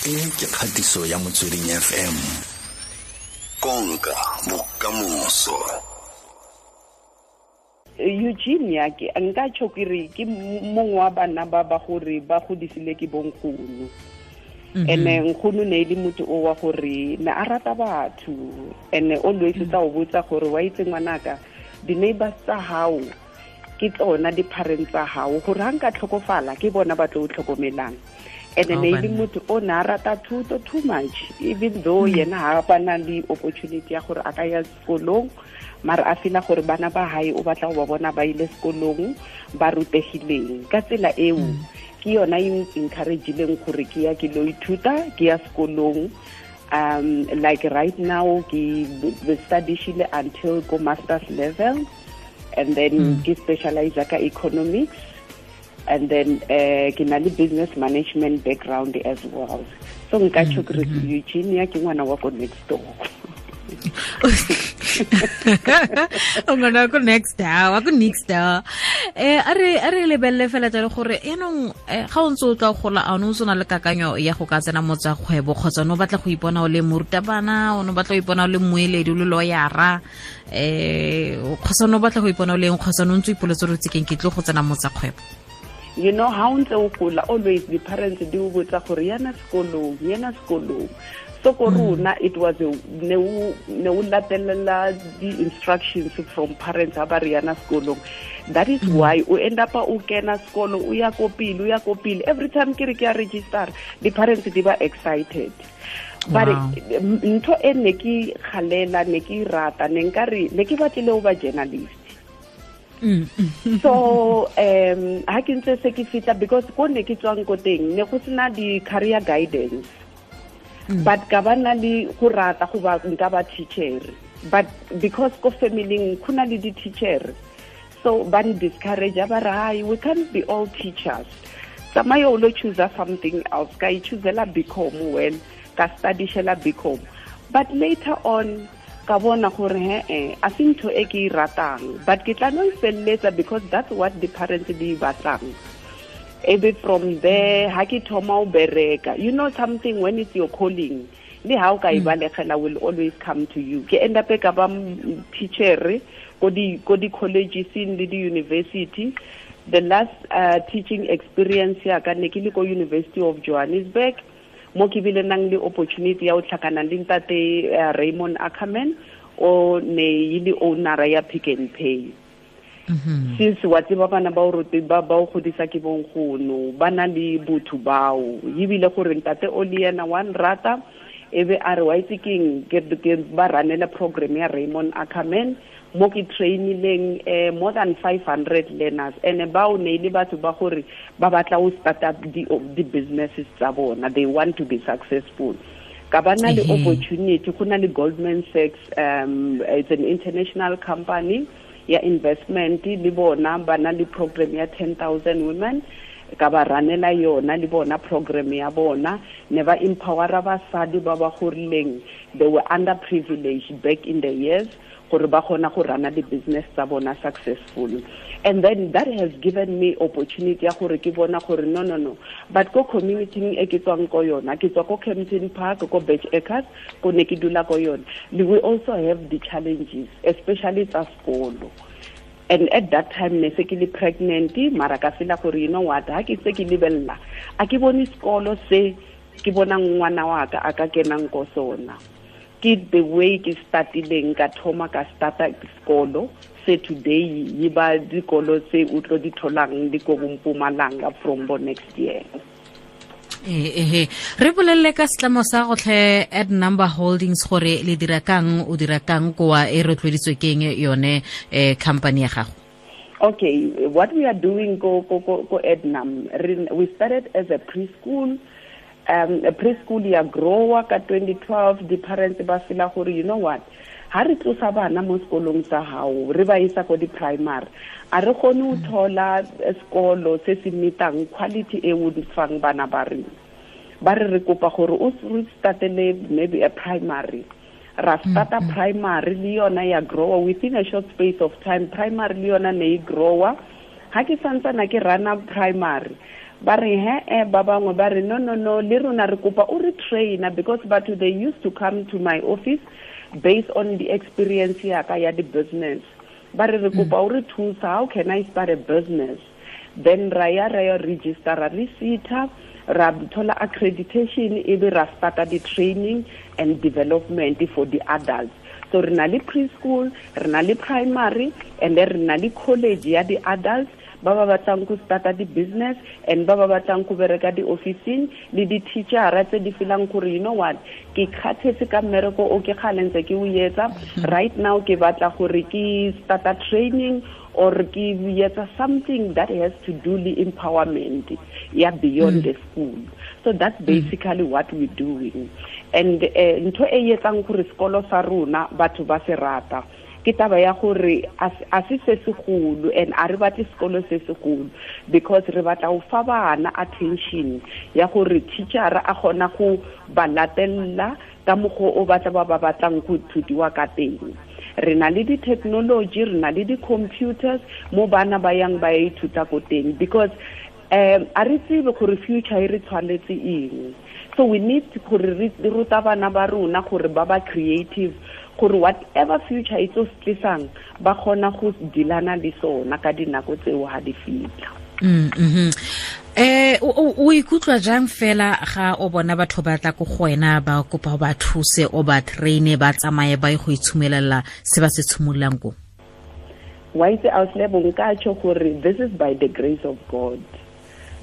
E ke kgatiso ya Motsweding FM. Konka bokamoso. Eugene ya ke nka tšho ke re ke mongwe wa bana ba ba gore ba godisile ke bonkgono. Ene nkgono ne e le motho o wa gore ne a rata batho, ene always tsa o botsa gore wa itse ngwanaka, di-neighbors tsa hao ke tsona di-parents tsa hao, gore ha nka tlhokofala ke bona ba tlo o tlhokomelang. Ene ne e le motho o ne a rata thuto too much, even though yena ha ba na le opportunity ya gore a ka ya sekolong, mara a feel gore bana ba hae o batla go ba bona ba ile sekolong ba rutegileng. Ka tsela eo ke yona e encourage-ileng gore ke ya ke lo ithuta, ke ya sekolong. Like right now ke study-shile until go master's level, and then ke specialize ka economics, and then ke na le business management background as well. So nka tjho ke re Eugenia ke ngwana wa ko next door. O ngwana ko next door, wa ko next door. A re lebelele fela jalo gore yaanong ga o ntse o tla gola, a o ne o ntse o na le kakanyo ya go ka tsena mo tsa kgwebo, kgotsa o ne o batla go ipona o le morutabana, o ne o batla go ipona o le mmueledi, o le lawyera, kgotsa o ne o batla go ipona o le eng, kgotsa o ne o ntse o ipoletse gore o tsekeng ke tlo go tsena mo tsa kgwebo? You know, ha o ntse o gola, always the parents di o botsa gore yana sekolong, yana sekolong. So ko rona it was a ne o latelela the instructions from parents ha ba re yana sekolong. That is why o end up o kena sekolo, o ya ko pele, o ya ko pele. Every time ke re ke a register, the parents di ba excited. But ntho e ne ke kgalela, ne ke rata, ne nka re ne ke batlile ho ba journalist. So ha ke ntse se ke fitla, because ko ne ke tswang ko teng ne go sena di career guidance. But ka ba na le go rata go ba nka ba teacher, but because ko family go na le di teacher, so ba n discourage, ba re hai, we can't be all teachers, tsamaya o lo choose something else. Ka e choosela BCom, well ka studyshela BCom, but later on ka bona gore he a se ntho e ke e ratang, but ke tla no e felletsa because that's what the parents di batlang. Ebe from there ha ke thoma o bereka, you know something when it's your calling, le ha o ka e balegela will always come to you. Ke end up ka ba teacher ko di colleges le di university. The last teaching experience ya ka ne ke le ko University of Johannesburg, mo ke bile nang le opportunity ya o tlhakana le ntate Raymond Ackerman, o ne e le owner ya Pick n Pay. Since wa tseba bana ba o rote ba o godisa ke bonkgono, ba na le botho bao, ebile gore ntate o le yena wa nrata, ebe a re wa itse keng, ke ba ranela program ya Raymond Ackerman, mo ke trainileng more than 500 learners, and bao ne le batho ba gore ba batla ho start up di businesses tsa bona, they want to be successful. Ka ba na le opportunity go na le Goldman Sachs, it's an international company ya investment, le bona ba na le program ya 10,000 women, ka ba ranela yona le bona program ya bona, ne ba empowera basadi ba ba gorileng, they were underprivileged back in the years, gore ba kgona go rana di business tsa bona successful. And then that has given me opportunity ya gore ke bona gore no, but ko community e ke tswang ko yona, ke tswa ko Kempton Park, ko Birch Acres, ko ne ke dula ko yona, we also have the challenges, especially tsa sekolo. And at that time ne se ke le pregnant, mara ka feel gore you know what, ha ke se ke lebella, a ke bone sekolo se ke bona ngwana wa ka a ka kenang ko sona. Ke the way ke startileng, ka thoma ka starta sekolo se today yi ba dikolo tse o tlo di tholang di ko Mpumalanga from bo next year. Re bolelle ka setlamo sa gotlhe at Number Holdings gore le dira kang, o dira kang koa e rotloeditswe keng yone company ya gago? Okay, what we are doing go Ednam, we started as a preschool. A preschool ya grower ka 2012, the parents ba feel gore you know what, ha re tlosa bana mo sekolong sa hao re ba isa ko di primary, a re kgone ho thola sekolo se se metang quality e o di fang bana ba rena. Ba re re kopa gore o re startele maybe a primary, ra starta primary le yona ya grower within a short space of time. Primary le yona ne e grower. Ha ke santsana ke rana primary, Ba re he ba bangwe ba re no no no, le rona re kopa o re trainer, because batho they used to come to my office based on the experience ya ka ya the business. Ba re re kopa o re thusa, how can I start a business? Then ra ya register, ra receipt, ra thola accreditation, e be ra starta the training and development for the adults. So re na le preschool, re na le primary, and then re na le college ya the adults ba ba batlang go starta di business and ba ba batlang go bereka di officing le di teacher tse di feelang gore you know what, ke kgathetse ka mmereko o ke kgalentse ke o etsa right now, ke batla gore ke starta training or ke etsa something that has to do with empowerment ya beyond the school. So that's basically what we're doing. And ntho e etsang gore sekolo sa rona batho ba se rata ke taba ya gore a se se segolo, and a re batle sekolo se segolo because re batla go fa bana attention ya gore teacher a kgona go ba latella ka mokgwa o batla ba ba batlang go thutiwa ka teng. Re na le di-technology, re na le di-computers mo bana ba yang ba ithuta ko teng, because a re tsebe gore future e re tshwanetse eng. So we need gore re ruta bana ba rona gore ba ba creative, gore whatever future e tlo tlisang ba kgona go dilana le sona ka dinako tseo ha di fitla. O ikutlwa jang fela ga o bona batho ba tla ko go wena ba kopa ba thuse o ba traine ba tsamaye ba ye go itshumelela se ba se tshimololang ko? Wa itse auslebo, nka tjho gore this is by the grace of God.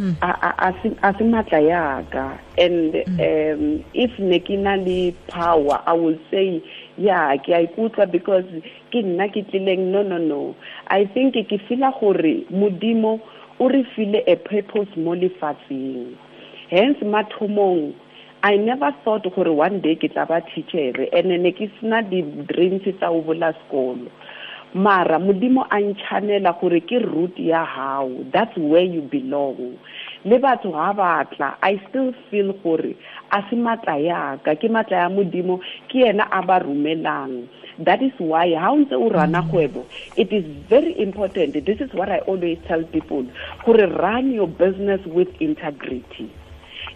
A se matla yaka, and if ne ke na le power, I will say yeah, ke a ikutlwa because ke nna ke tlileng. No no no, I think ke feel gore Modimo o re file a purpose mo lefatsheng. Hence mathomong I never thought gore one day ke tla ba teacher, and ne ke sena di dreams tsa o bola sekolo. Mara Modimo a nchanela gore ke route ya hao, that's where you belong. Le batho ha batla, I still feel gore a se matla yaka, ke matla ya Modimo, ke yena a ba romelang. That is why ha o ntse o rana kgwebo, it is very important. This is what I always tell people, gore run your business with integrity.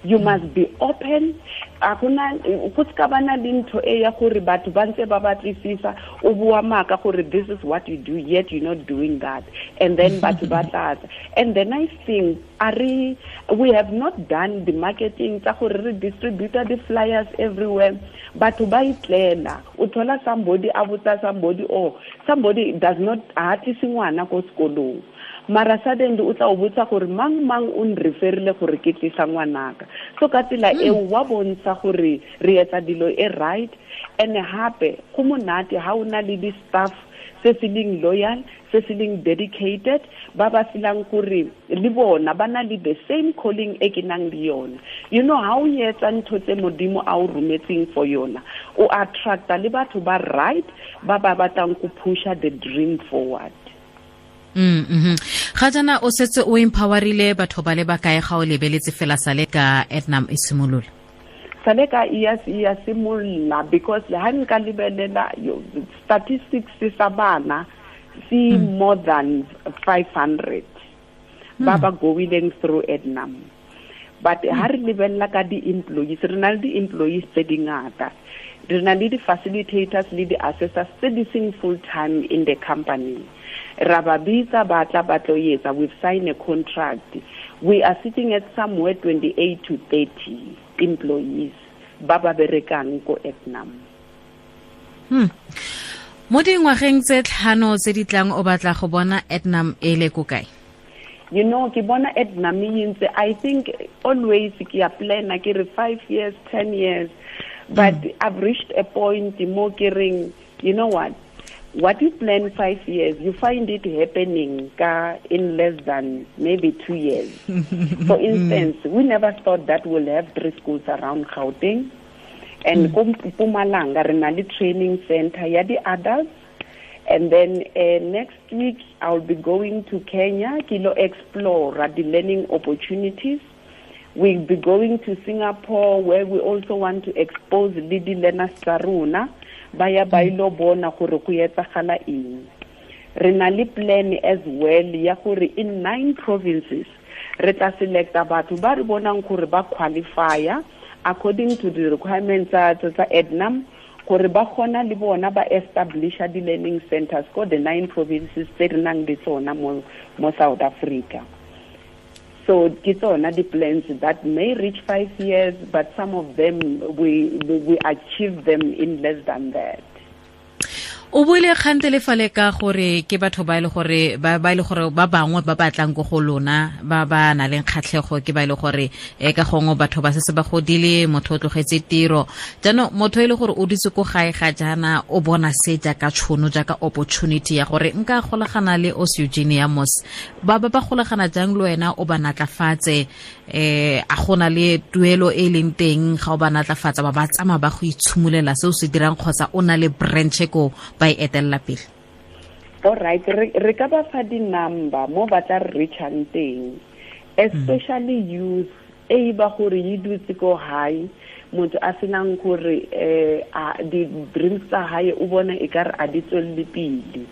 You must be open. Akuna go ska bana le ntho e ya gore batho ba ntse ba batlisisa o bua maka gore this is what you do, yet you're not doing that, and then batho ba tlatsa. And the nice thing, we have not done the marketing tsa gore re distribute the flyers everywhere. Batho ba itlela, o thola somebody a botsa somebody, oh somebody does not a tlise ngwana ko sekolong, mara suddenly o tla o botsa gore mang mang o nreferile gore ke tlisa ngwanaka. So ka tsela eo wa bontsha gore re etsa dilo e right. And hape go monate ha o na le di staff se se leng loyal, se se leng dedicated, ba ba feelang gore le bona ba na le the same calling e ke nang le yona. You know how o etsa ntho tse Modimo a o rometseng for yona, o attracta le batho ba right, ba ba batlang go pusha the dream forward. Ga jana o setse o empowerile batho ba le ba kae ga o lebeletse fela sale ka Ednam e simolola? Sale ka e ya simolola, because ha nka lebelela statistics sa bana see more than 500 ba ba going through Ednam. But ha re lebella ka di-employees, re na le di-employees tse dingata, re na le di-facilitators le di-assessors tse di seng full time in the company. Ra ba bitsa ba tla ba tlo etsa, we've signed a contract. We are sitting at somewhere 28 to 30 employees ba ba berekang ko Ednam. Mo dingwageng tse tlhano tse di tlang o batla go bona Ednam e le ko kae? You know, ke bona Ednam e ntse, I think always ke a planner ke re 5 years, 10 years, but I've reached a point mo ke reng, you know what you plan 5 years, you find it happening in less than maybe 2 years. For instance, we never thought that we'll have 3 schools around Gauteng. And Mpumalanga, re na le training center ya di adults. And then next week, I'll be going to Kenya, ke lo explore the learning opportunities. We'll be going to Singapore, where we also want to expose le di learners tsa rona, ba ya ba ilo bona gore go etsagala eng. Re na le plan as well ya gore in 9 provinces, Re tla selecta batho ba re bonang gore ba qualifya according to the requirements tsa Ednam, gore ba kgona le bona ba establisha di-learning centers ko the 9 provinces tse re nang le tsona mo South Africa. So ke tsona di-plans that may reach 5 years, but some of them we achieve them in less than that. O buile kgante le fale ka gore ke batho ba ile gore ba ile gore ba bangwe ba batlang go go lona ba ba na leng kgatlhego ke ba ile gore ka gongwe batho ba se ba godile, motho o tlogetse tiro. Jaanong motho e le gore o ditse ko gae ga jaana o bona se jaaka tshono, jaaka opportunity ya gore nka golagana le Os Eugenia Mos. Ba ba golagana jang le wena o ba natlafatse, a gona le tuelo e leng teng ga o ba natlafatsa ba ba tsamaya ba go itshimolela se o se dirang, kgotsa o na le branch ko ba e etella pele? All right, re ka ba fa di-number mo ba tla re reachang teng, especially youth e ba gore e dutse ko hae, motho a senang gore di-dreams tsa hae o bona e ka re a di tswelle pele.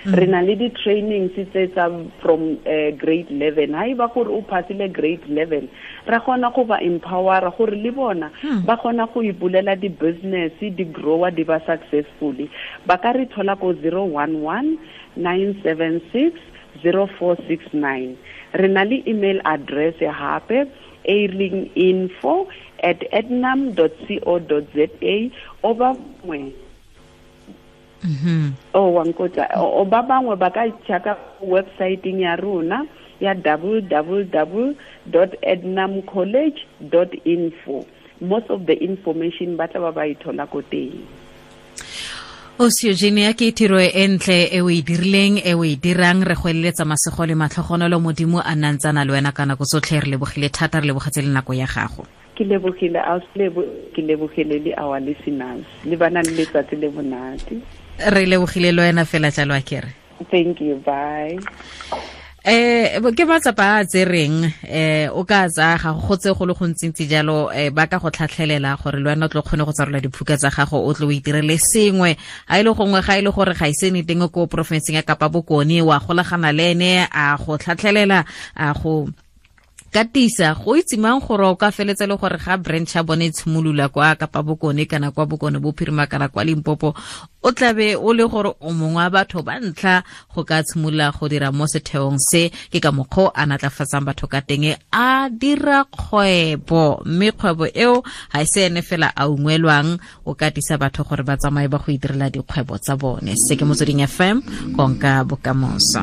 Re na le di-trainings tse tsa from grade 11. Ha e ba gore o passile grade 11, ra kgona go ba empowera gore le bona ba kgona go ipulela di-business, di-grower, di ba successfully. Ba ka re thola ko 011 976 0469. Re na le email address hape e leng info@ednam.co.za. O ba mongwe o ba bangwe ba ka checka website ya rona ya www.ednamcollege.info. Most of the information ba tla ba e thola ko teng. Os Eugenia, ke tiro e ntle e o e dirileng, e o e dirang. Re go eleletsa masego le matlhogonolo, Modimo a nna ntse a na le wena ka nako tsotlhe. Re lebogile thata, re lebogetse le nako ya gago. Ke lebogile, ke lebogile le our listeners. Le bana le letsatsi le monate. Re lebogile le wena fela jalo, a kere. Thank you, bye. Ke matsapa a tsereng, o ka tsaya ga go tse go le gontsintsi jalo, ba ka go tlhatlhelela gore le wena o tlo kgone go tsarola diphuka tsa gago, o tlo o itirele sengwe. Ha ile gongwe ga ile gore ga ise ne teng ko porofenseng ya Kapa Bokone, wa golagana le ene a go tlhatlhelela, a go katisa go itse mang gore o ka feletse le gore ga branch ya bone e tshimolola kwa Kapa Bokone kana kwa Bokone Bophirima kana kwa Limpopo, o tlabe o le gore o mongwe wa batho ba ntlha go ka tshimolola go dira mo setheong se. Ke ka mokgwa a natlafatsang batho ka teng, a dira kgwebo, mme kgwebo eo ga e se ene fela a ungwelwang, o katisa batho gore ba tsamaye ba go itirela dikgwebo tsa bone. Se ke Motsweding FM, konka bokamoso.